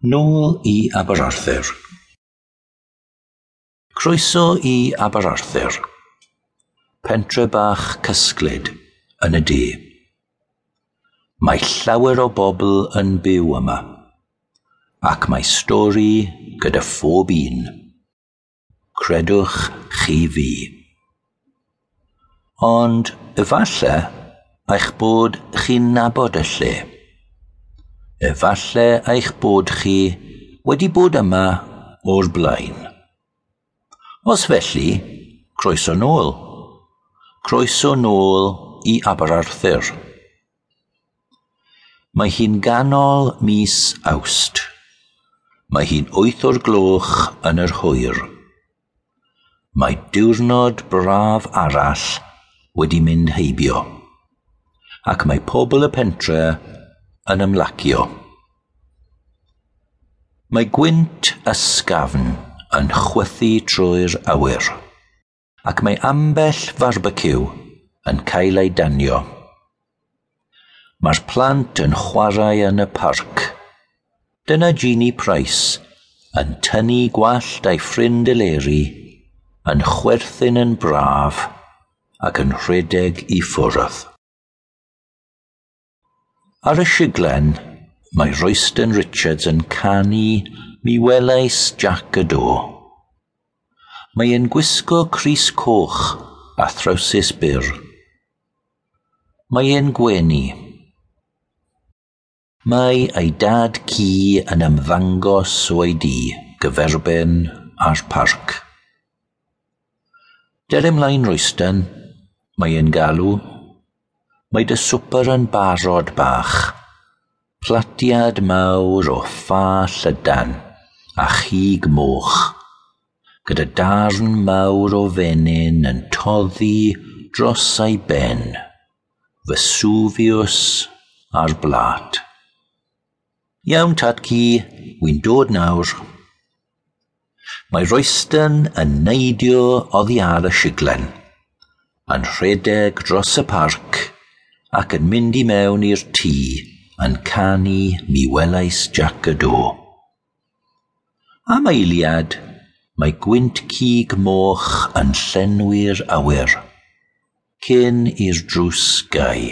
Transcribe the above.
Nôl i Aberarthur. Croeso i Aberarthur, pentre bach cysglyd yn y de. Mae llawer o bobl yn byw yma, ac mae stori gyda phob un. Credwch chi fi. Ond efallai eich bod chi'n nabod y lle. Efallai eich bod chi wedi bod yma o'r blaen. Os felly, croeso nôl. Croeso nôl i Aberarthur. Mae hi'n ganol mis Awst. Mae hi'n 8 o'r gloch yn yr hwyr. Mae diwrnod braf arall wedi mynd heibio, ac mae pobl y pentre yn ymlacio. Mae gwynt ysgafn yn chwythu trwy'r awyr, ac mae ambell farbeciw yn cael ei danio. Mae'r plant yn chwarae yn y parc. Dyna Jeannie Price yn tynnu gwallt ei ffrind Eleri, yn chwerthin yn braf ac yn rhedeg i ffwrdd. Ar y siglen, mae Royston Richards yn canu "Mi welais Jac y Do". Mae e'n gwisgo crys coch a throwsus byr. Mae e'n gwenu. Mae ei dad ci yn ymddangos o'i dŷ gyferbyn â'r parc. "Dere ymlaen, Royston," mae e'n galw. "Mae dy swper yn barod, bach. Platiad mawr o ffa llydan a chig moch, gyda darn mawr o fenyn yn toddi dros ei ben. Vesuvius ar blat." "Iawn, tad-cu, wy'n dod nawr." Mae Royston yn neidio oddi ar y siglen, yn rhedeg dros y parc ac yn mynd i mewn i'r tŷ yn canu "Mi welais Jac y Do". Am eiliad, mae gwynt cig moch yn llenwi'r awyr, cyn i'r drws gau.